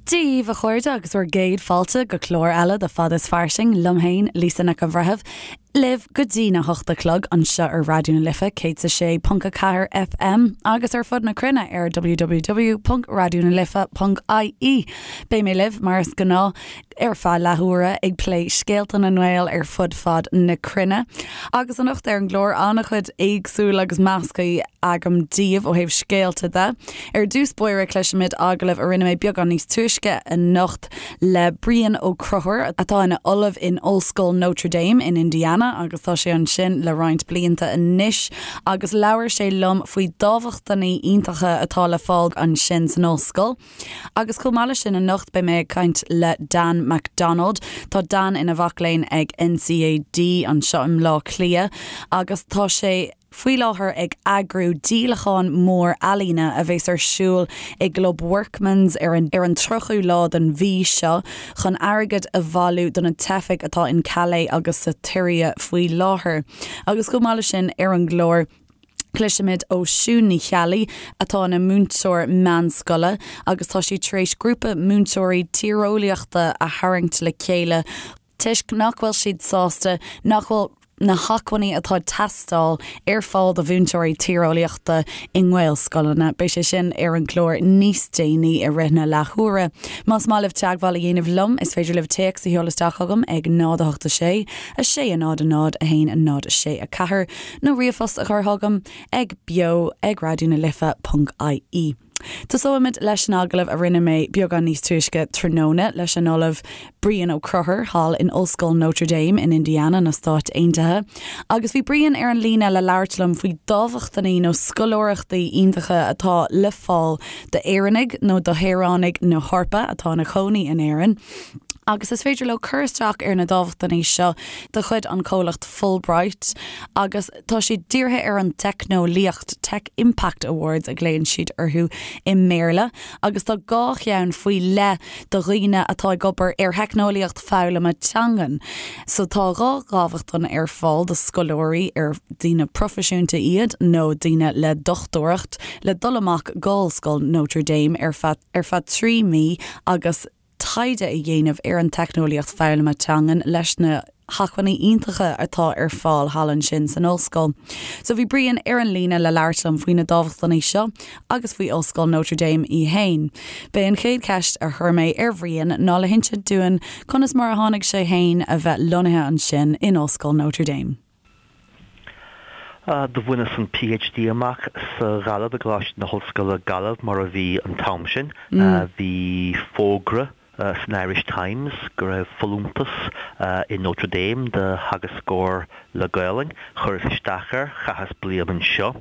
Dia dhaoibh a chairde agus bhur gcéad fáilte go clár eile de Fada is Fairsing liom féin, Lisa Nic an Bhreithimh, libh go dtí na hocht a chlog anseo ar Raidió na Life 106.4 FM agus ar fud na cruinne ar www.raidionalife.ie. Beidh mé libh mar is gnáth ar feadh leathuaire ag plé scéalta na nGael ar fud fad na cruinne. Agus anocht ar an gclár an-chuid éagsúil agus measctha agam daoibh ó thaobh scéalta de. Ar dtús báire cloisfimid agallamh a rinne mé beagán níos túisce anocht le Brian Ó Conchúir atá ina ollamh in Ollscoil Notre Dame in Indiana agus tá sé ansin le roinnt blianta anois agus labhair sé liom faoi dámhachtainí iontacha atá le fáil ansin san ollscoil. Agus chomh maith leis sin anocht beidh mé ag caint le Dan McDonald. Tá Dan ina mhac léinn ag NCAD anseo i mBleá Cliath agus tá sé faoi láthair ag eagrú díolachán mór ealaíne a bheas ar siúl i gClub Workman's ar an ar an 30ú lá den mhí seo chun airgead a bhailiú do na teifigh atá in Calais agus sa tSiria faoi láthair. Agus chomh maith leis sin ar an gclár, Cloisfimid ó Siún Ní Cheallaigh, atá ina múinteoir meánscoile agus tá sí tar éis grúpa múinteoirí tíreolaíochta a tharraingt le chéile toisc nach bhfuil siad sásta nach bhfuil na hacmhainní atá ag teastáil ar fáil do mhúinteoirí tíreolaíochta i nGaelscoileanna. Beidh sé sin ar an gclár níos déanaí i rith na leathuaire. Más maith libh teagmháil a dhéanamh liom, is féidir libh téacs a sheoladh isteach chugam ag 0 8 6 6 0 0 1 0 6 4. nó ríomhphost a chur chugam ag beo ag raidió na life ponc ie. Tosóimid leis an agallamh a rinne mé beagán níos túisce tráthnóna leis an Ollamh Brian Ó Conchúir thall in Ollscoil Notre Dame in Indiana na Stáit Aontaithe. Agus bhí Brian ar an líne le labhairt liom faoi dámhachtainí nó scoláireachtaí iontacha atá le fáil d'Éireannaigh nó do shaoránaigh na hEorpa atá ina chónaí in Éirinn. Agus is féidir leo cur isteach ar na dámhachtainí seo de chuid an chomhlacht Fulbright agus tá siad dírithe ar an teicneolaíocht, Tech Impact Awards a ghlaonn siad orthu i mBéarla, agus tá 2 cheann faoi leith do dhaoine atá ag obair ar theicneolaíocht foghlama teangan. So tá 2 dhámhachtain ar fáil do scoláirí ar daoine proifisiúnta iad nó daoine le dochtúireacht le dul amach go Ollscoil Notre Dame ar feadh ar feadh 3 mí agus taighde a dhéanamh ar an teicneolaíocht foghlama teangan leis na hacmhainní iontacha atá ar fáil thall ansin san ollscoil. So bhí Brian ar an líne le labhairt liom faoi na dámhachtainí seo agus faoi Ollscoil Notre Dame í fhéin. B'é an chéad cheist a chuir mé ar Bhrian ná le hinsint dúinn conas mar a tháinig sé fhéin a bheith lonnaithe ansin in Ollscoil Notre Dame. Do bhaineas an PhD amach sa Ghaillimh, i gColáiste na hOllscoile Gaillimh mar a bhí an t-am sin. Bhí fógra san Irish Times go raibh folúntas i Notre Dame do theagascóir le Gaolainn. Chuireas isteach air, chaitheas bliain anseo.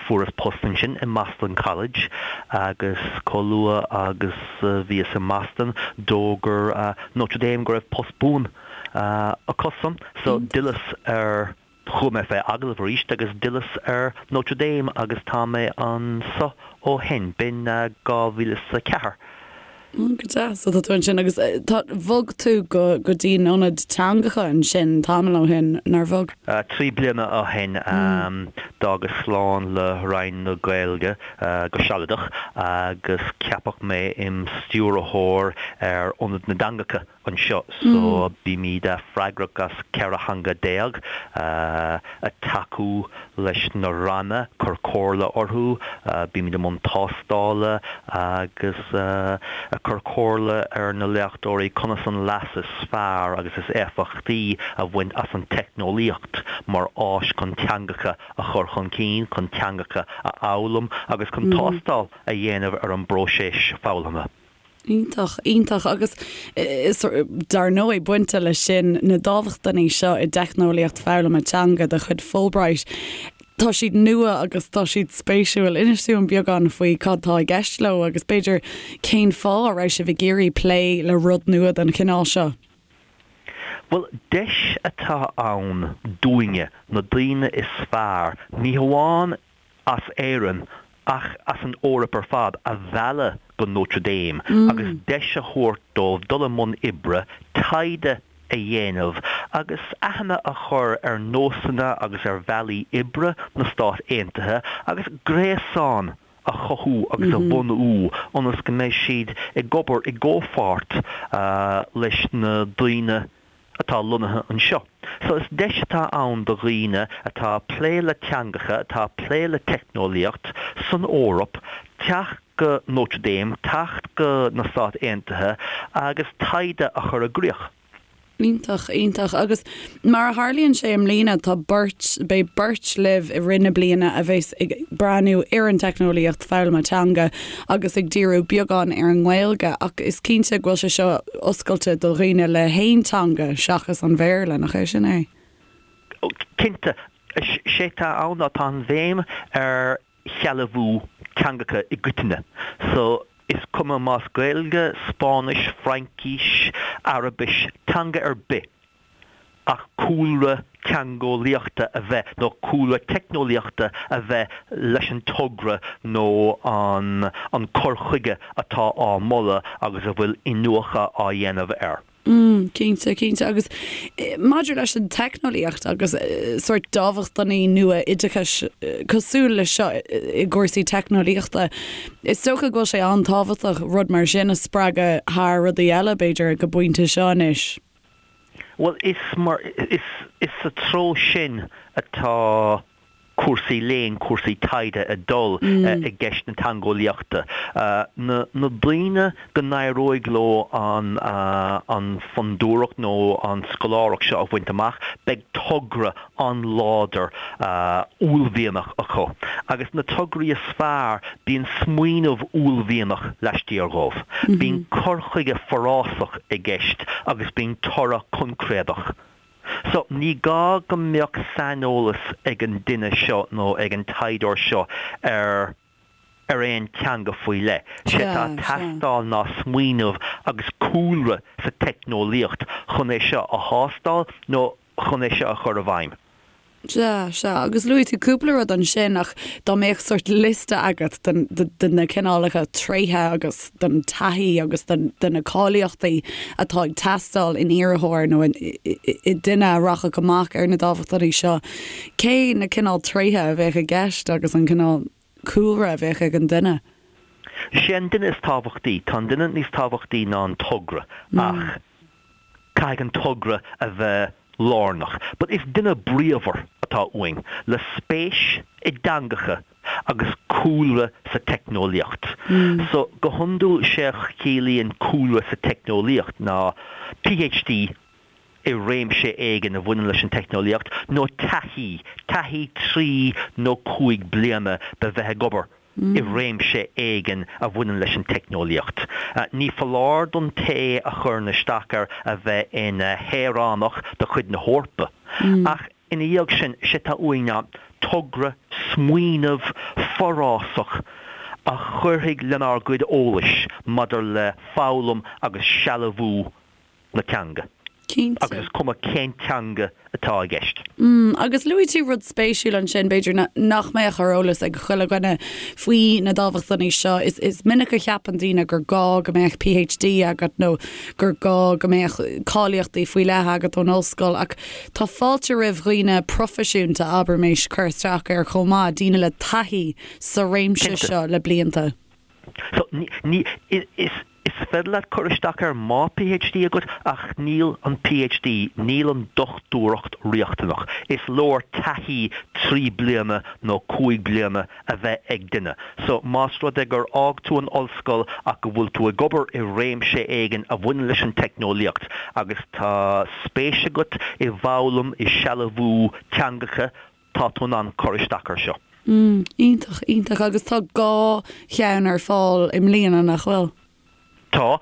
Fuaireas post ansin i mBoston College agus chomh luath agus a bhíos i mBoston d'fhógair Notre Dame go raibh post buan acusan so d'fhilleas ar, chuaigh mé fé agallamh arís agus d'fhilleas ar Notre Dame agus tá mé anso ó shin, b'in 2004. Go deas. So tá tú ansin agus tá, bhog tú go, go dtí an ionad teangacha ansin tamall ó shin, nár bhog? 3 bliana ó shin d'fhágas slán le Roinn na Gaeilge go sealadach agus ceapadh mé im stiúrthóir ar Ionad na dTeangacha. anseo so bímid freagrach as 14 theanga, ag tacú leis na ranna, cur comhairle orthu, bímid i mbun tástála agus ag cur comhairle ar na léachtóirí conas an leas is fearr agus is éifeachtaí a bhaint as an teicneolaíocht mar áis chun teangacha a chur chun cinn, chun teangacha a fhoghlaim agus chun tástáil a dhéanamh ar an bpróiseas foghlamtha. Iontach, iontach. Agus is, dar ndóigh, bainte leis sin, na dámhachtainí seo i dteicneolaíocht foghlama teanga de chuid Fulbright, tá siad nua agus tá siad spéisiúil. Inis dúinn beagán faoi cad tá i gceist leo agus b'fhéidir cén fáth a raibh sibh ag iarraidh plé le rud nua den chineál seo. Bhuel, deis atá ann dúinne, na daoine is fearr, ní hamháin as Éirinn ach as an Eoraip ar fad, a mhealladh go Notre Dame agus deis a thabhairt dóibh dul i mbun oibre, taighde a dhéanamh agus aithne a chur ar nósanna agus ar bhealaí oibre na Stát Aontaithe agus gréasán. a chothú agus a bhunú ionas go mbeidh siad ag obair i gcomhpháirt leis na daoine atá lonnaithe anseo. So is deis atá ann do dhaoine atá ag plé le teangacha, atá ag plé le teicneolaíocht san Eoraip teacht go Notre Dame, teacht go na Stáit Aontaithe agus taighde a chur i gcrích. Iontach, iontach. Agus mar a tharlaíonn sé i mbliana, tá beirt, beidh beirt libh i rith na bliana a bheas ag breathnú ar an teicneolaíocht foghlama teanga agus ag díriú beagán ar an nGaeilge ach is cinnte go bhfuil sé seo oscailte do dhaoine le haon teanga seachas an Bhéarla, nach é sin é? Cinnte. Sé atá ann ná tá an bhéim ar shealbhú teangacha i gcoitinne. So, is cuma más Gaeilge, Spáinnis, Fraincis, Araibis, teanga ar bith, ach cúlra teangeolaíochta a bheith, nó cúlra teicneolaíochta a bheith leis an togra nó an an cur chuige atá á moladh agus a bhfuil iniúchadh á dhéanamh air. Mm, cinnte, cinnte. Agus maidir leis an teicneolaíocht agus sórt dámhachtainí nua oideachais cosúil leis seo i gcúrsaí teicneolaíochta, is dócha go bhfuil sé an-tábhachtach rud mar sin a spreagadh thar rudaí eile, b'fhéidir, ag an bpointe seo anois. Bhuel, is mar, is, is sa treo sin atá cúrsaí léinn, cúrsaí taighde ag dul i gceist na teangeolaíochta. Na daoine go n-éireoidh leo an an fondúireacht nó an scoláireacht seo a bhaint amach, beidh togra an-láidir uaillmhianach acu. Agus na tograí is fearr, bíonn smaoineamh uaillmhianach laistiar dhóibh. Bíonn cur chuige forásach i gceist agus bíonn toradh coincréadach. So, ní gá go mbeadh saineolas ag an duine seo nó ag an taighdeoir seo ar ar aon teanga faoi leith. Sé atá ag teastáil ná smaoineamh agus cúlra sa teicneolaíocht chun é seo a thástáil nó chun é seo a chur i bhfeidhm. Sea, sea. Agus luaigh tú cúpla rud ansin ach dá mbeadh sórt liosta agat de na cineálacha tréithe agus den taithí agus de na cáilíochtaí atá ag teastáil in iarrthóir nó i nduine a rachadh amach ar na dámhachtainí seo, cé na cineál tréithe a bheadh i gceist agus an cineál cúlra a bheadh ag an duine? Sé an duine is tábhachtaí. Tá an duine níos tábhachtaí ná an togra ach caithfidh an togra a bheith lárnach. But is duine bríomhar atá uainn, le spéis i dteangacha agus cúlra sa teicneolaíocht. So, go hiondúil sé a chiallaíonn cúlra sa teicneolaíocht ná PhD i réimse éigin a bhaineann leis an teicneolaíocht nó taithí, taithí 3 nó 5 bliana de bheith ag obair i réimse éigin a bhaineann leis an teicneolaíocht. Ní foláir don té a chuireann isteach air a bheith ina shaoránach de chuid na hEorpa. Ach ina dhiaidh sin, sé atá uainn ná togra, smaoineamh forásach a chuirfidh lenár gcuid eolais maidir le foghlaim agus sealbhú na teanga. Cinnte. Agus is cuma cén teanga atá i gceist. Mm, agus luaigh tú rud spéisiúil ansin, b'fhéidir nach mbeadh ar eolas ag chuile dhuine faoi na dámhachtainí seo. Is, is minic a cheapann daoine gur gá go mbeadh PhD agat nó gur gá go mbeadh cáilíochtaí faoi leith agat ón ollscoil, ach tá fáilte roimh dhaoine proifisiúnta, abraimis, cur isteach air chomh maith, daoine le taithí sa réimse seo le blianta. So, ní, ní, is, Is féidir leat cur isteach air má PhD agat ach níl an PhD, níl an dochtúireacht riachtanach. Is leor taithí 3 bliana nó 5 bliana a bheith ag duine. So, más rud é gur fhág tú an ollscoil ach go bhfuil tú ag obair i réimse éigin a bhaineann leis an teicneolaíocht agus tá spéis agat i bhfoghlaim, i sealbhú teangacha, tá tú in ann cur isteach air seo. Mm, iontach, iontach. Agus tá dhá cheann ar fáil i mbliana, nach bhfuil? Tá.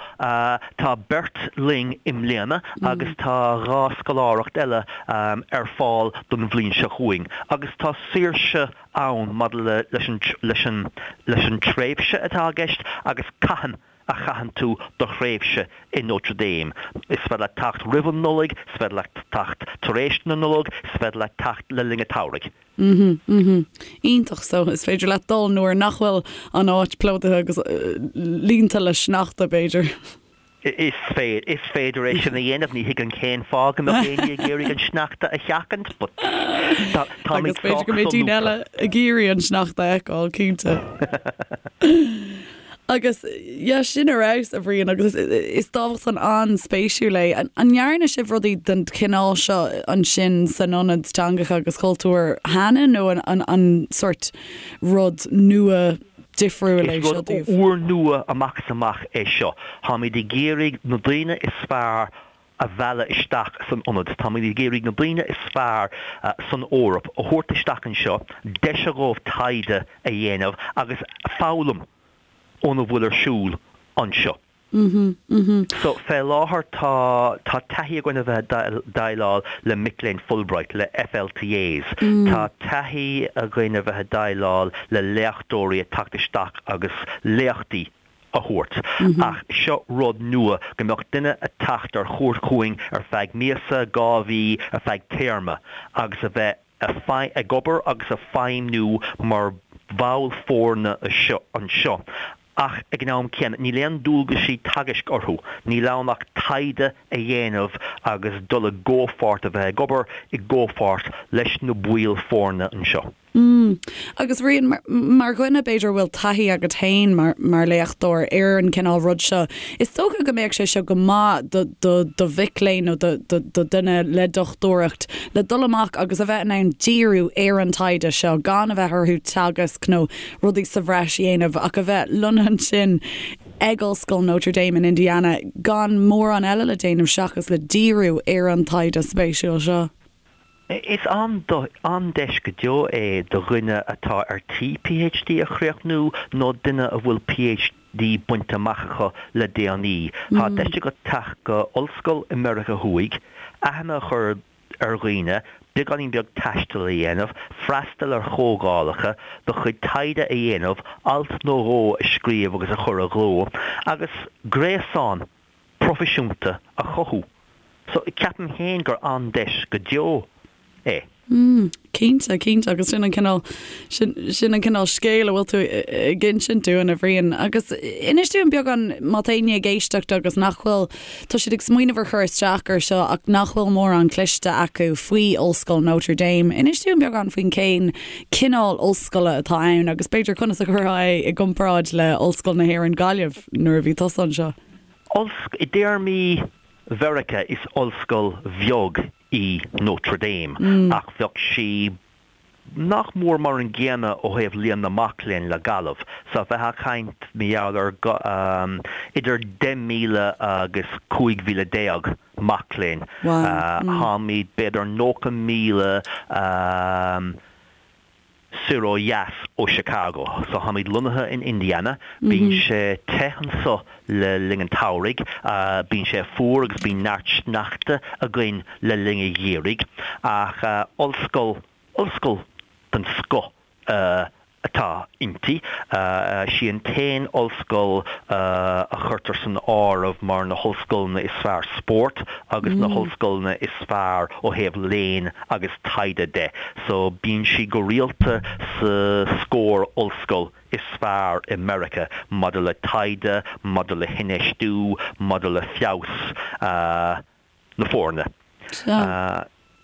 Tá beirt linn i mbliana agus tá dhá scoláireacht eile ar fáil don bhliain seo chugainn. Agus tá saoirse ann maidir le leis an leis an leis an tréimhse atá i gceist agus cathain a chaitheann tú do thréimhse i Notre Dame. Is féidir leat teacht roimh an Nollaig, is féidir leat teacht tar éis na Nollag, is féidir leat teacht le linn an tsamhraidh. Mhm, mhm. Iontach, so is féidir leat dul nuair nach bhfuil an áit plódaithe agus líonta le sneachta, b'fhéidir. Is féidir, is féidir é sin a dhéanamh, ní thuigim cén fáth go mbeadh éinne ag iarraidh an sneachta a sheachaint, but. Agus b'fhéidir go mbeidh daoine eile ag iarraidh an sneachta a fheiceáil, cinnte. Agus yeah, sin ar fheabhas, a Bhriain, agus is dámhachtain an-spéisiúil é. An ndearna sibh rudaí den chineál seo ansin san Ionad Teangacha agus Cultúir cheana nó an sórt rud nua difriúil é seo daoibh? Is rud úrnua amach is amach é seo. Táimid ag iarraidh na daoine is fearr a mhealladh isteach san ionad. Táimid ag iarraidh na daoine is fearr san Eoraip a thabhairt isteach anseo, deis a dhóibh taighde a dhéanamh agus foghlaim óna bhfuil ar siúl anseo. So, fé láthair tá tá taithí againn a bheith ag déileáil le mic léinn Fulbright, le FLTAs. Tá taithí againn a bheith ag déileáil le léachtóirí ag teacht isteach agus léachtaí a thabhairt. Ach seo rud nua, go mbeadh duine ag teacht ar chuairt chugainn ar feadh míosa, 2 mhí, ar feadh téarma agus a bheith ag obair agus ag feidhmniú mar bhall foirne anseo. Ach ag an am céanna, níl aon dualgaisí teagaisc orthu, níl ann ach taighde a dhéanamh agus dul i gcomhpháirt, a bheith ag obair i gcomhpháirt leis na baill foirne anseo. Mm. Agus Bhriain, mar dhuine b'fhéidir a bhfuil taithí agat féin mar mar léachtóir ar an cineál rud seo, is dócha go mbeadh sé seo go maith do do do mhic léinn nó do do do dhuine le dochtúireacht le dul amach agus a bheith in ann díriú ar an taighde seo gan a bheith orthu teagasc nó rudaí sa bhreis a dhéanamh ach a bheith lonnaithe ansin ag Ollscoil Notre Dame in Indiana gan mórán eile le déanamh seachas le díriú ar an taighde spéisiúil seo. Is an-deis go deo é do dhuine atá ar tí PhD a chríochnú nó duine a bhfuil PhD bainte amach acu le déanaí. Tá deis agat teacht go ollscoil i Meiriceá Thuaidh, aithne a chur ar dhaoine, beagáinín beag taistil a dhéanamh, freastal ar chomhdhálacha, do chuid taighde a dhéanamh, alt nó dhó a scríobh agus a chur i gcló, agus gréasán proifisiúnta a chothú. So, ceapaim féin gur an-deis go deo é. Mm, cinnte, cinnte, agus sin an cineál, sin, sin an cineál scéil a bhfuil tú ag insint dúinn, a Bhriain. Agus inis dúinn beagán, má tá éinne ag éisteacht agus nach bhfuil, tá siad ag smaoineamh ar chur isteach ar seo ach nach bhfuil mórán cloiste acu faoi Ollscoil Notre Dame, inis dúinn beagán faoin cén cineál ollscoile atá ann agus b'fhéidir conas a chuirfeá é i gcomparáid le Ollscoil na hÉireann Gaillimh nuair a bhí tusa anseo. Ollscoil, I dtéarmaí Mheiriceá is ollscoil bheag í Notre Dame ach bheadh sí nach mór mar an gcéanna ó thaobh líon na mac léinn le Gaillimh. So bheifeá ag caint mar gheall ar idir 10,000 agus 15,000 mac léinn. Táimid b'fhéidir 90,000 soir ó dheas ó Chicago. So táimid lonnaithe in Indiana. Bíonn sé te anso le linn an tsamhraidh, bíonn sé fuar agus bíonn neart sneachta againn le linn an gheimhridh. Ach ollscoil, ollscoil den scoth atá inti. Sí an t-aon ollscoil a chuirtear san áireamh mar na hollscoileanna is fearr spóirt agus na hollscoileanna is fearr ó thaobh léinn agus taighde de. So bíonn sí go rialta sa scór ollscoil is fearr i Meiriceá maidir le taighde, maidir le hinfheistiú, maidir le feabhas na foirne.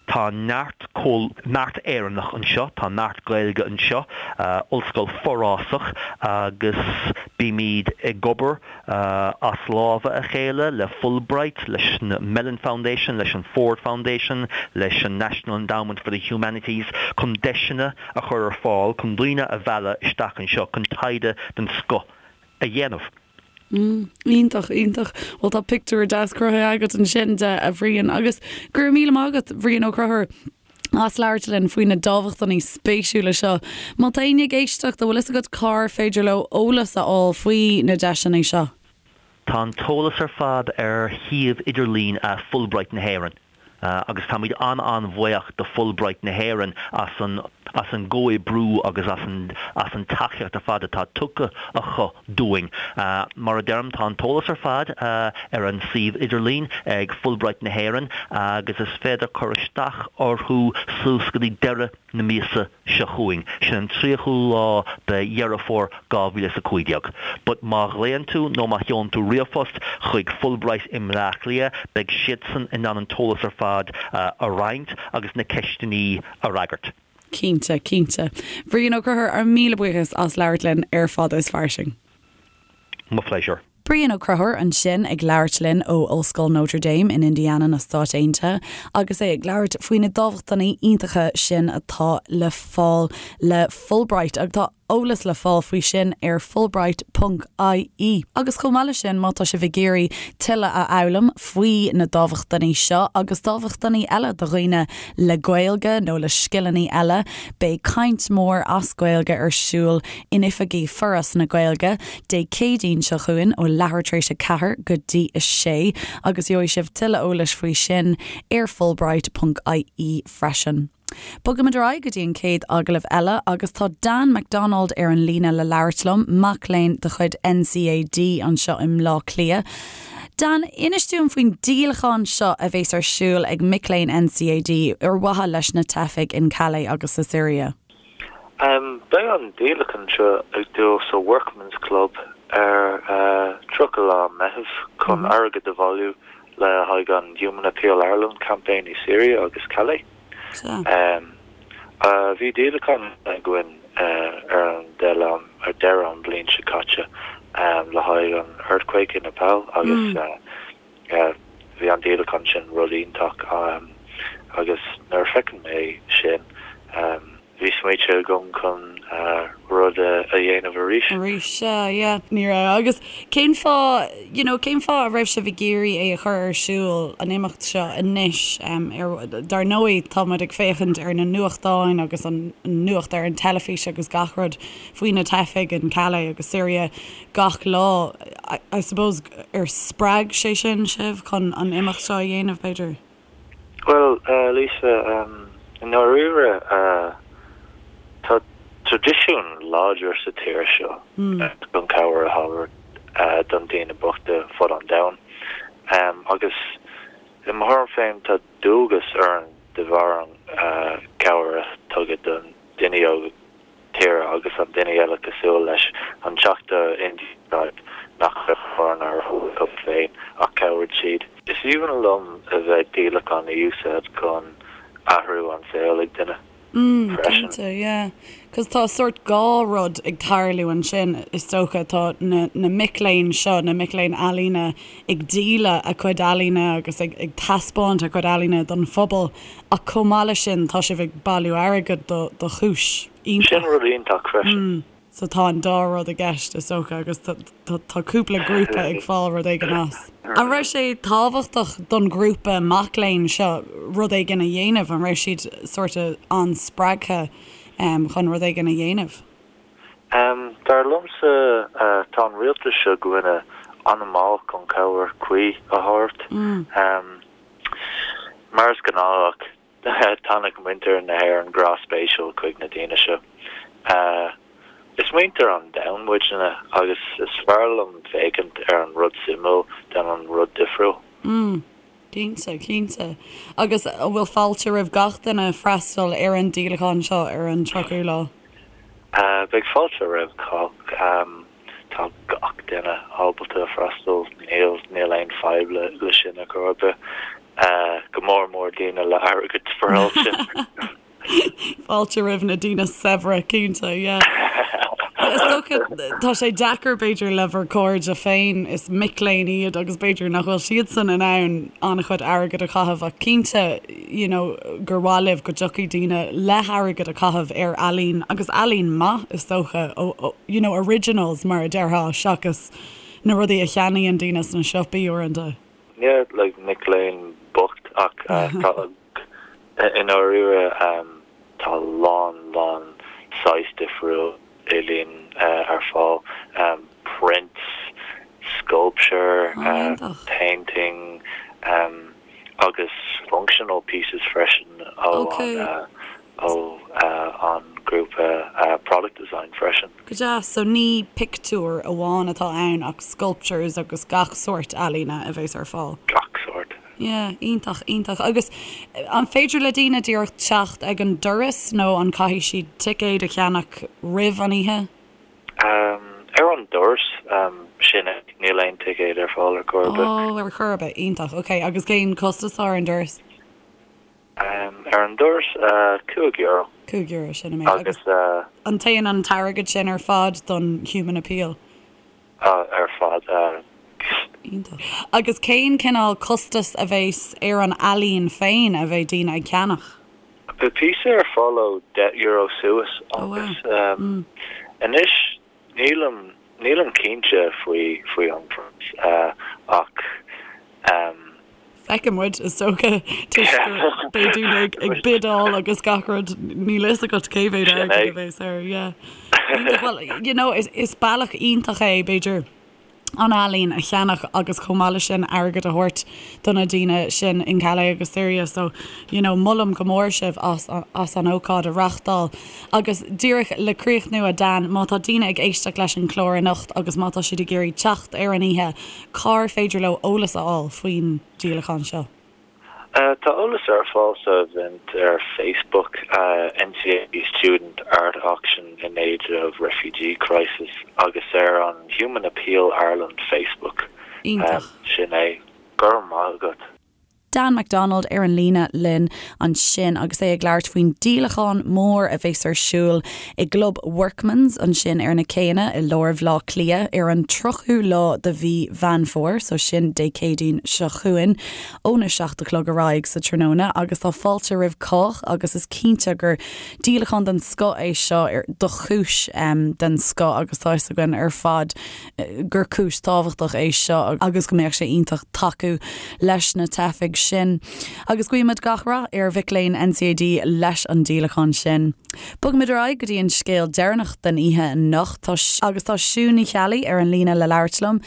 Tá neart neart Éireannach anseo, tá neart Gaeilge anseo, ollscoil forásach agus bímid ag obair as lámha a chéile le Fulbright, leis an Mellon Foundation, leis an Ford Foundation, leis an National Endowment for the Humanities chun deiseanna a chur ar fáil chun daoine a mhealladh isteach anseo chun taighde den scoth a dhéanamh. Mm, iontach, iontach. Bhuel tá pictiúr deas cruthaithe agat ansin de, a Bhriain, agus go raibh míle maith agat, Bhriain Ó Conchúir, as labhairt linn faoi na dámhachtainí spéisiúla seo. Má tá éinne ag éisteacht, an bhfuil fhios agat cár féidir leo eolas a fháil faoi na deiseanna seo? Tá an t-eolas ar fad ar shuíomh idirlín Fulbright na hÉireann agus táimid an-an-bhuíoch do Fulbright na hÉireann as an. As an gcomhoibriú agus as an as an tacaíocht ar fad atá tugtha acu dúinn. Mar a deirim, tá an t-eolas ar fad ar an suíomh idirlín ag Fulbright na hÉireann agus is féidir cur isteach orthu suas go dtí deireadh na míosa seo chugainn, sin an 30ú lá de Dheireadh Fómhair 2015. But má ghlaonn tú nó má sheolann tú ríomhphost chuig Fulbright i mBleá Cliath, beidh siadsan in ann an t-eolas ar fad a roinnt agus na ceisteanna a fhreagairt. Cinnte, cinnte. Brian Ó Conchúir, ár míle buíochas as labhairt linn ar Fada is Fairsing. Mo phléisiúr. Brian Ó Conchúir ansin ag labhairt linn ó Ollscoil Notre Dame in Indiana na Stáit Aontaithe agus é ag labhairt faoi na dámhachtainí iontacha sin atá le fáil le Fulbright agus tá eolas le fáil faoi sin ar fulbright ponc ie. Agus chomh maith leis sin, má tá sibh ag iarraidh tuilleadh a fhoghlaim faoi na dámhachtainí seo agus dámhachtainí eile do dhaoine le Gaeilge nó le scileanna eile, beidh caint mhór as Gaeilge ar siúl in oifigí Foras na Gaeilge Dé Céadaoin seo chugainn ó leathuair tar éis 4 go dtí 6 agus gheobhaidh sibh tuilleadh eolais faoi sin ar fulbright ponc ie freisin. Bogaimid ar aghaidh go dtí an chéad agallamh eile agus tá Dan McDonald ar an líne le labhairt liom, mac léinn de chuid NCAD anseo i mBleá Cliath. Dan, inis dúinn faoin díolachán seo a bheas ar siúl ag mic léinn NCAD ar mhaithe leis na teifigh in Calais agus sa Siria. Beidh an díolachán seo ag dul sa Workman's Club ar 30 lá Meitheamh chun airgead a bhailiú le haghaidh an Human Appeal Ireland campaign i Syria agus Calais. Bhí díolachán againn ar an ar deireadh an bhliain seo caite le haghaidh an earthquake i Nepal agus bhí an díolachán sin rud iontach agus nuair a feiceann mé sin Bhí smaointe agam chun rud a dhéanamh arís. Arís, sea, yeah. Ní raibh. Agus cén fáth, you know, cén fáth a raibh sibh ag iarraidh é a chur ar siúl, an imeacht seo, anois? Ar, dar ndóigh, tá muid ag féachaint ar na nuachtáin agus an nuacht ar an teilifís agus gach rud faoi na teifigh in Calais agus Syria gach lá. I, I suppose, ar spreag sé sin sibh chun an imeacht seo a dhéanamh, b'fhéidir? Bhuel, Lisa, i ndáiríre, tá traidisiún láidir sa tír seo chun cabhair a thabhairt don daoine bochta fud an domhain. Agus i mo thuairim féin, tá dualgas orainn de bharr an cabhair a tugadh don duine óg tíre agus an duine eile cosúil leis an Teachta Indian Tribe nach raibh mórán acu féin ach chabhraigh siad. Is aoibhinn liom a bheith díolachán a úsáid chun athrú an saol ag duine freisin. Cinnte, yeah. Cos tá sórt dhá rud ag tarlú ansin is dócha. Tá na na mic léinn seo, na mic léinn ealaíne ag díol a cuid ealaíne agus ag ag taispeáint a cuid ealaíne don phobal Ach chomh maith leis sin, tá sibh ag bailiú airgid do do chúis iontach. Sin rud iontach freisin. So tá an dá rud i gceist, is dócha, agus tá cúpla grúpa ag fáil rud éigin as. An raibh sé tábhachtach don ghrúpa mac léinn seo rud éigin a dhéanamh? An raibh siad sort of an-spreagtha chun rud éigin a dhéanamh? Dar liomsa, tá an rialtas seo againne an-mhall chun cabhair cuí a thabhairt. Mar is gnách, tháinig muintir na hÉireann grá spéisiúil chuig na daoine seo. Is muintir an domhain muidne agus is fearr liom féachaint ar an rud suimiúil than an rud difriúil. Mm, cinnte, cinnte. Agus an bhfuil fáilte roimh gach duine freastal ar an díolachán seo ar an 30ú lá? Beidh fáilte roimh chách. Tá gach duine ábalta freastal, níl níl aon fadhb le le sin ar chor ar bith. Go mór mór daoine le airgead spáráilte. Fáilte roimh na daoine saibhre, cinnte, yeah. Is dócha, tá sé deacair b'fhéidir le bhur cairde féin, is mic léinn iad agus b'fhéidir nach bhfuil siadsan in ann an-chuid airgid a chaitheamh ach cinnte, you know, gur mhaith libh go dtiocfaidh daoine le hairgead a chaitheamh ar ealaín agus ealaín maith is dócha, you know, originals mar a déarfá seachas na rudaí a cheannaíonn daoine sna siopaí uaireanta. Yeah, like mic léinn bocht ach tá i ndáiríre tá lán lán saghas difriúil ealaín ar fáil, prints, sculpture, painting agus functional pieces freisin ó an. ó an grúpa Product Design freisin. Go deas, so ní pictiúir amháin atá ann ach sculptures agus gach sórt ealaíne a bheas ar fáil. Gach sórt. Yeah, iontach, iontach. Agus an féidir le daoine díreach teacht ag an doras nó an caithfidh siad ticéad a cheannach roimh an oíche? Ar an doras, sin é, níl aon ticéad ar fáil ar chor ar bith. Oh, ar chor ar bith, iontach, ok. Agus cén costas atá ar an doras? Ar an doras, €5. €5, sin an méid. Agus an dtéann an t-airgead sin ar fad don Human Appeal? Ar fad. Iontach. Agus cén cineál costas a bheas ar an ealaín féin a bheidh daoine ag ceannach? Beidh píosa ar fáil ó €10 suas agus anois nílim nílim cinnte faoi faoi an phraghas ach. Feicfidh muid, is dócha, toisc go beidh daoine ag ag bidáil agus gach rud, níl fhios agat cé mhéad airgead a bheas air, yeah. Iontach, well, you know, is is bealach iontach é, b'fhéidir, an ealaín a cheannach agus chomh maith leis sin airgead a thabhairt do na daoine sin in Calais agus Syria so, you know, molaim go mór sibh as as an ócáid a reachtáil. Agus díreach le críochnú, a Dan, má tá daoine ag éisteacht leis an chlár anocht agus má tá siad ag iarraidh teacht ar an oíche, Cár féidir leo eolas a fháil faoin díolachán seo? Tá eolas ar fáil sa event ar Facebook, NCAD Student Art Auction in Aid of Refugee Crisis agus ar an Human Appeal Ireland Facebook. Iontach. Sin é. Go raibh maith agat. Dan McDonald ar an líne linn ansin agus é ag labhairt faoin díolachán mór a bheas ar siúl i gClub Workman's ansin ar na céanna i lár Bhaile Átha Cliath ar an 30ú lá de mhí Mheán Fómhair, so sin Dé Céadaoin seo chugainn, óna 7 a chlog ar aghaidh sa tráthnóna agus tá fáilte roimh chách agus is cinnte gur díolachán den scoth é seo do chúis den scoth agus tá fhios againn ar fad gur cúis tábhachtach é seo agus go mbeadh sé iontach tacú leis na teifigh sin. Agus guímid gach rath ar mhic léinn NCAD leis an díolachán sin. Bogfaimid ar aghaidh go dtí an scéal deireanach den oíche anocht agus tá Siún Ní Cheallaigh ar an líne le labhairt liom.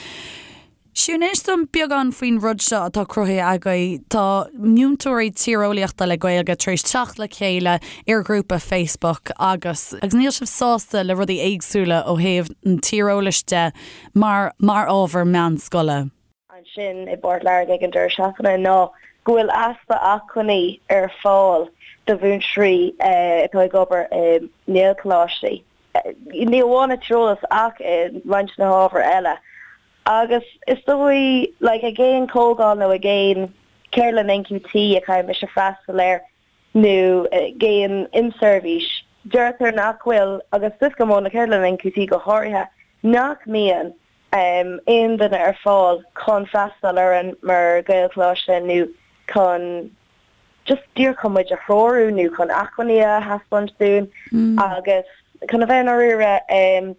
Siún, inis dom beagán faoin rud seo atá cruthaithe agaibh. Tá múinteoirí tíreolaíochta le Gaeilge tar éis teacht le chéile ar ghrúpa Facebook agus agus níl sibh sásta le rudaí éagsúla ó thaobh an tíreolais de mar mar ábhar meánscoile. ansin i bPort Láirge ag an deireadh seachtaine ná go bhfuil easpa acmhainní ar fáil do mhúinteoirí atá ag obair i nGaelcholáistí, ní amháin i tíreolas ach i roinnt de na hábhair eile. Agus is dóigh, like, ag aon chomhdháil nó ag aon cheardlann NQT a chaithfidh mise freastal air nó ag aon inseirbhís, deirtear nach bhfuil, agus is go mó na ceardlanna NQT go háirithe, nach mbíonn aon duine ar fáil chun freastal orainn mar Ghaelcholáiste nó chun just díreach chun muid a threorú nó chun acmhainní a thaispeáint dúinn agus chun a bheith i ndáiríre,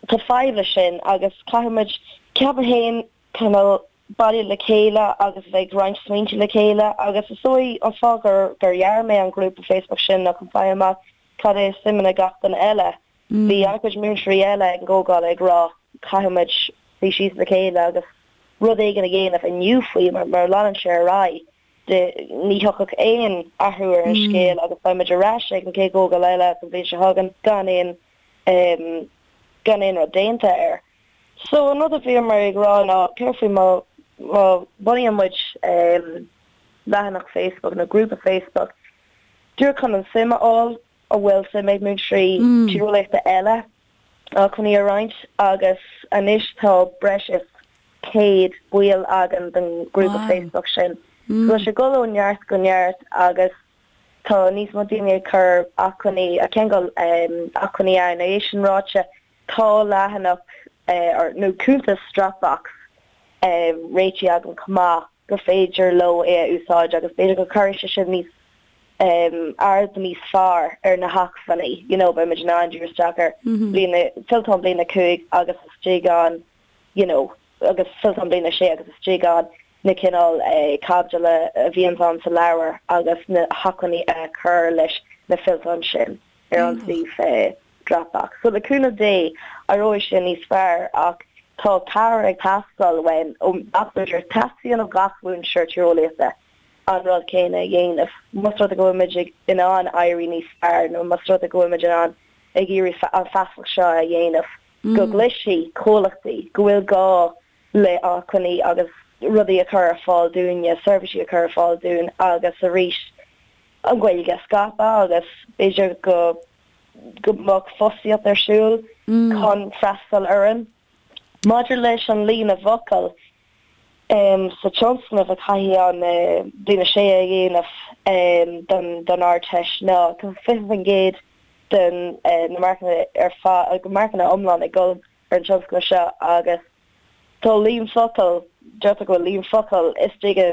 Tá fadhb leis sin agus caithfidh muid, ceapaim féin, cineál bailiú le chéile agus a bheith ag roinnt smaointe le chéile agus is dóigh an fáth gur gur dhear mé an grúpa Facebook sin ná chun fáil amach cad é suimeanna gach duine eile. Bhí an-chuid múinteoirí eile ag an gcomhdháil ag rá caithfidh muid suí síos le chéile agus rud éigin a dhéanamh inniu faoi mar mura leanann sé ar aghaidh ní thiocfadh aon athrú ar an scéal agus beidh muid ar ais ag an chéad chomhdháil eile an bhliain seo chugainn gan aon gan aon rud déanta air. So an rud a bhíomar ag rá ná céard faoi má má bhunaíonn muid leathanach Facebook nó grúpa Facebook díreach chun an suim a fháil an bhfuil suim ag múinteoirí tíreolaíochta eile acmhainní a roinnt agus anois tá breis is 100 baill againn den ghrúpa Facebook sin. So tá sé ag dul ó neart go neart agus Tá níos mó daoine ag cur acmhainní, ag ceangal acmhainní ann. É sin ráite, tá leathanach nó cuntas Dropbox réitithe agam chomh maith gur féidir leo é a úsáid agus b'fhéidir go gcuirfidh sé sin níos aird níos fearr ar na hacmhainní. You know, beidh muid in ann díriú isteach ar bliain, fillteán bliain 5 agus istigh ann, you know, agus fillteán bliain 6 agus istigh ann na cineál caibidil a bhíonns ann sa leabhar agus na hacmhainní a chur leis na fillteáin sin ar an suíomh Dropbox. So le cúnamh Dé éireoidh sé níos fearr ach tá cabhair ag teastáil uainn ó gach múinteoir. Teastaíonn ó gach múinteoir tíreolaíochta. an rud céanna a dhéanamh. Más rud é go bhfuil muid in ann éirí níos fearr nó más rud é go bhfuil muid in ann ag iarraidh an feasacht seo a dhéanamh go gcloisfidh comhlachtaí go bhfuil gá le acmhainní agus rudaí a chur ar fáil dúinne, seirbhísí a chur ar fáil dúinn agus arís an Ghaeilge a scaipeadh agus b'fhéidir go go mbeadh fostaíocht ar siúl chun freastal orainn. Maidir leis an líon i bhfocail sa tionscnamh a chaithfidh an Bliain 6 a dhéanamh don Ardteist ná tá 20% den na marcanna ar fad, marcanna iomlán ag dul ar an tionscnamh seo agus tá líon focal, deirtear go bhfuil líon focal istigh i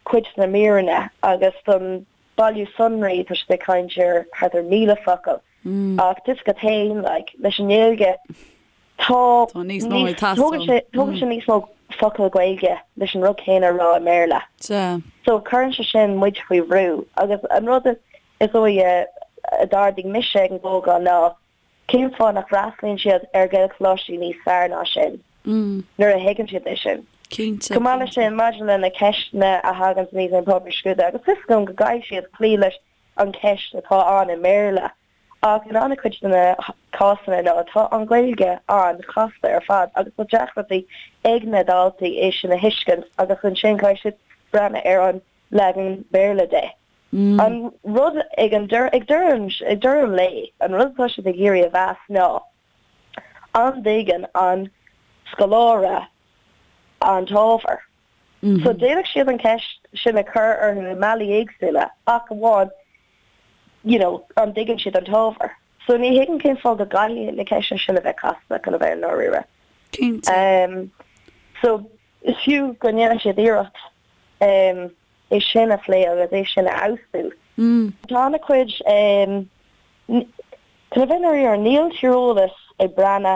cuid de na míreanna agus don bailiú sonraí tá siad ag caint ar thart ar 1,000 focal ach tá a fhios agat féin like leis an nGaeilge tá Tá níos mó ag teastáil. tógann sé tógann sé níos mó focal Gaeilge leis an rud céanna a rá i mBéarla. Sea. So cuireann sé sin muid faoi bhrú agus an rud is dóigh a d'ardaigh mise ag an gcomhdháil ná Cén fáth nach bhfreastalaíonn siad ar Ghaelcholáistí níos fearr ná sin nuair a thuigeann siad é sin? Cinnte, Chomh maith leis cinnte. sin, maidir le na ceisteanna a thagann aníos ar an bpáipéar scrúdaithe, agus fios agam go gcaithfidh siad cloí leis an cheist atá ann i mBéarla, ach in an-chuid de na cásanna ná tá an Ghaeilge an-chasta ar fad agus tá deacrachtaí ag na daltaí é sin a thuiscint agus ansin caithfidh siad breathnú ar an leagan Béarla de. An rud ag an deireadh, ag deireadh, ag deireadh an lae, an rud atá siad ag iarraidh a mheas ná an dtuigeann an scoláire an t-ábhar. So d'fhéadfadh siad an ceist sin a chur orthu i mbealaí éagsúla ach amháin you know an dtuigeann siad an t-ábhar. So ní thuigim cén fáth go gcaithfidh na ceisteanna sin a bheith casta chun a bheith i ndáiríre. Cinnte. So is fiú go ndéanann siad iarracht. é sin a phlé agus é sin a fheabhsú. Tá an-chuid, chun a bheith i ndáiríre, níl tíreolas ag breathnú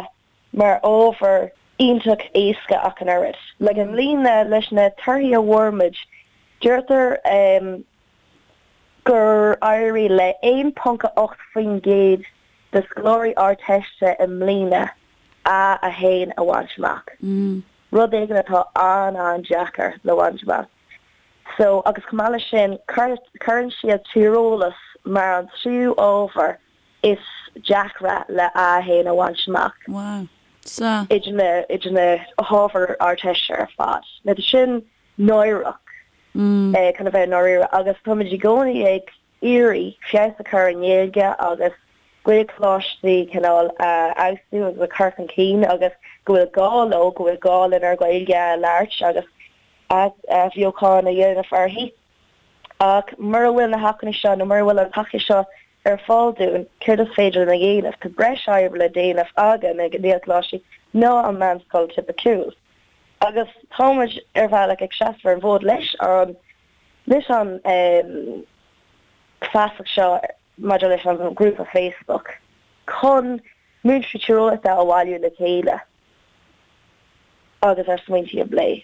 mar ábhar iontach éasca ach an oiread. Like i mbliana leis na torthaí a bhfuair muid, deirtear gur éirigh le 1.8% de scoláirí Ardteiste i mbliana A1 a bhaint amach. Rud éigin atá an-an-deacair le bhaint amach. So, agus chomh maith leis sin, cuireann siad tíreolas mar an tríú ábhar is deacra le A1 a bhaint amach. Wow. Sea. Idir na, idir na hábhair Ardteiste ar fad. Now, tá sin náireach, chun a bheith i ndáiríre, agus táimid i gcónaí ag iarraidh feabhas a chur ar an nGaeilge agus Gaelcholáistí cineál a fheabhsú agus a chur chun cinn agus go bhfuil gá leo, go bhfuil gá lenár Gaeilge a labhairt agus athbheochan a dhéanamh uirthi. Ach mura bhfuil na hacmhainní seo nó mura bhfuil an tacaíocht seo ar fáil dúinn, céard is féidir linn a dhéanamh? Tá breis oibre le déanamh againn ag na Gaelcholáistí ná an meánscoil tipiciúil. Agus tá muid ar bhealach ag seasamh ar an bhfód leis an leis an feasacht seo maidir leis an ngrúpa Facebook chun múinteoirí tíreolaíochta a bhailiú le chéile agus ár smaointí a phlé.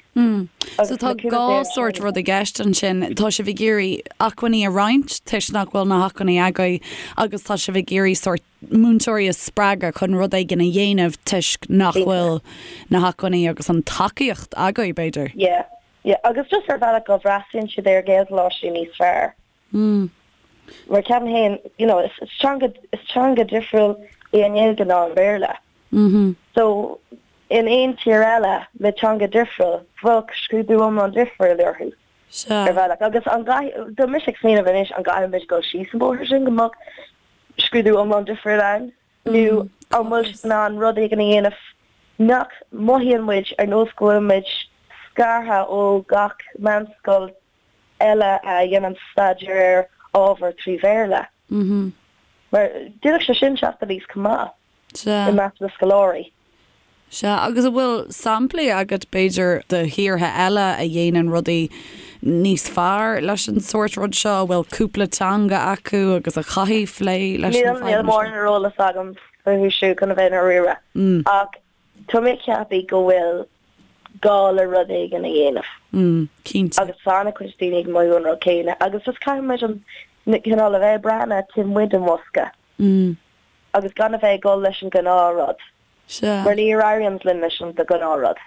So tá dhá sórt rud i gceist ansin. Tá sibh ag iarraidh acmhainní a roinnt toisc nach bhfuil na hacmhainní agaibh agus tá sibh ag iarraidh sórt múinteoirí a spreagadh chun rud éigin a dhéanamh toisc nach bhfuil na hacmhainní agus an tacaíocht agaibh, b'fhéidir. Yeah. Yeah, agus just ar bhealach go bhfreastalaíonn siad ar Ghaelcholáistí níos fearr. Mm. Mar ceapaim féin, you know, is teanga, is teanga difriúil í an Ghaeilge ná an Béarla. Mm-hmm. So, in aon tír eile le teanga difriúil, bheadh scrúdú iomlán difriúil orthu. Sea. Ar bhealach. Agus an gcaithfidh, tá mise ag smaoineamh anois, an gcaithfidh muid dul síos an bóthar sin go mbeadh scrúdú iomlán difriúil ann? Nó an bhfuil siad in ann rud éigin a dhéanamh nach mothaíonn muid ar nós go bhfuil muid scartha ó gach meánscoil eile a dhéanann staidéar ar ábhar trí Bhéarla? Mar d'fhéadfadh sé sin teacht aníos chomh maith i measc na scoláirí. Sea, agus an bhfuil samplaí agat, b'fhéidir, de thíortha eile a dhéanann rudaí níos fearr leis an sórt rud seo, a bhfuil cúpla teanga acu agus a chaithfidh plé leis na fadhbanna seo? Níl mórán ar eolas agam fúthu siúd chun a bheith i ndáiríre, ach tá mé ag ceapadh go bhfuil gá le rud éigin a dhéanamh. Cinnte. Agus tá an-chuid daoine ag mothú an rud céanna agus just caithfidh muid an cineál a bheith ag breathnú taobh amuigh den bhosca agus gan a bheith ag dul leis an ghnáthrud. Sea. Mar ní éiríonn linn leis an ghnáthrud.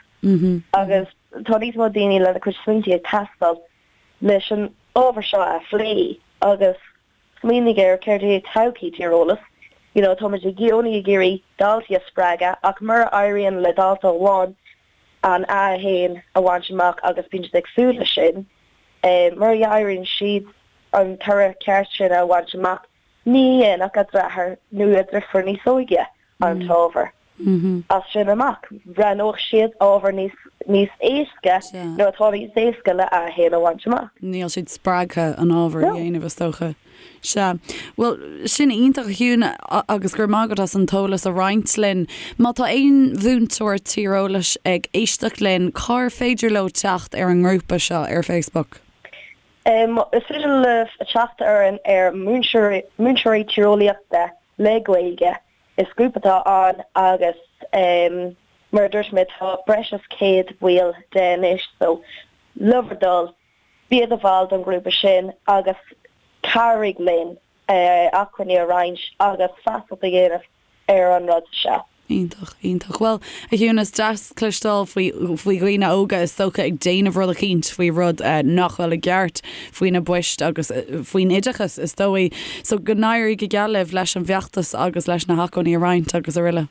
Agus tá níos mó daoine lena cuid smaointe ag teastáil leis an. ábhar seo a phlé agus smaoinigh ar céard é todhchaí tíreolas. You know, táimid i gcónaí ag iarraidh daltaí a spreagadh ach mura éiríonn le dalta amháin an A1 a bhaint amach agus bíonn siad ag súil leis sin, mura éiríonn siad an toradh ceart sin a bhaint amach, ní dhéanfadh a dheartháir nó a deirfiúr níos óige an t-ábhar as sin amach. Roghnódh siad ábhar níos níos éasca nó atá níos éasca le A1 a bhaint amach. Níl siad spreagtha an ábhar a dhéanamh is dócha. Sea. Bhuel, sin iontach a Shiún agus go raibh maith agat as an t-eolas a roinnt linn. Má tá aon mhúinteoir tíreolais ag éisteacht linn, cár féidir leo teacht ar an ngrúpa seo ar Facebook? Is féidir libh teacht orainn ar Múinteoirí Tíreolaíochta le Gaeilge. Is grúpa atá ann agus mar a dúirt mé tá breis is 100 baill de anois so le bhur dtoil bí i do bhall don ghrúpa sin agus cabhraigh linn acmhainní a roinnt agus feasacht a dhéanamh ar an rud seo. Iontach, iontach. Bhuel, a Shiún, is deas cloisteáil faoi, faoi dhaoine óga is dócha ag déanamh rud eicínt faoi rud nach bhfuil i gceart faoi na poist agus faoin oideachas is dóigh. So go n-éirí go geal libh leis an bhfeachtas agus leis na hacmhainní a roinnt agus araile.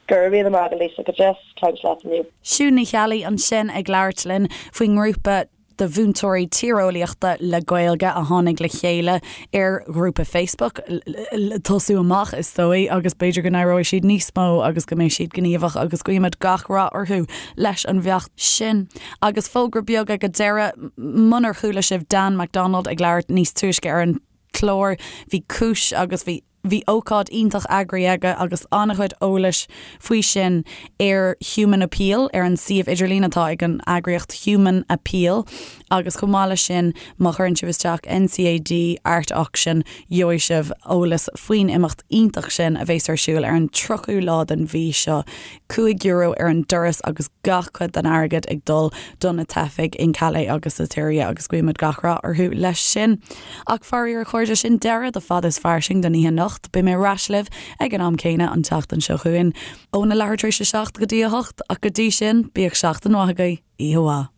Go raibh míle maith agat Lisa, go deas caint leat inniu. Siún Ní Cheallaigh ansin ag labhairt linn faoin ngrúpa de mhúinteoirí tíreolaíochta le Gaeilge a tháinig le chéile ar ghrúpa Facebook le tosú amach is dóigh agus b'fhéidir go n-éireoidh siad níos mó agus go mbeidh siad gníomhach agus guímid gach rath orthu leis an bhfeachtas sin. Agus fógra beag ag an deireadh, munar chuala sibh Dan McDonald ag labhairt níos túisce ar an chlár, bhí cúis agus bhí. Bhí ócáid iontach eagraithe aige agus an-chuid eolais faoi sin ar Human Appeal, ar an suíomh idirlín atá ag an eagraíocht Human Appeal agus chomh maith leis sin má chuireann sibh isteach NCAD Art Auction gheobhaidh sibh eolas faoin imeacht iontach sin a bheas ar siúl ar an 30ú lá den mhí seo. €5 ar an doras agus gach cuid den airgead ag dul do na teifigh in Calais agus sa tSiria agus guímid gach rath orthu leis sin. Ach faraor a chairde, sin deireadh do Fada is Fairsing don oíche anocht. Beidh mé ar ais libh ag an am céanna an tseachtain seo chugainn, óna leathuair tar éis a 7 go dtí a 8, ach go dtí sin, bíodh seachtain mhaith agaibh, oíche mhaith.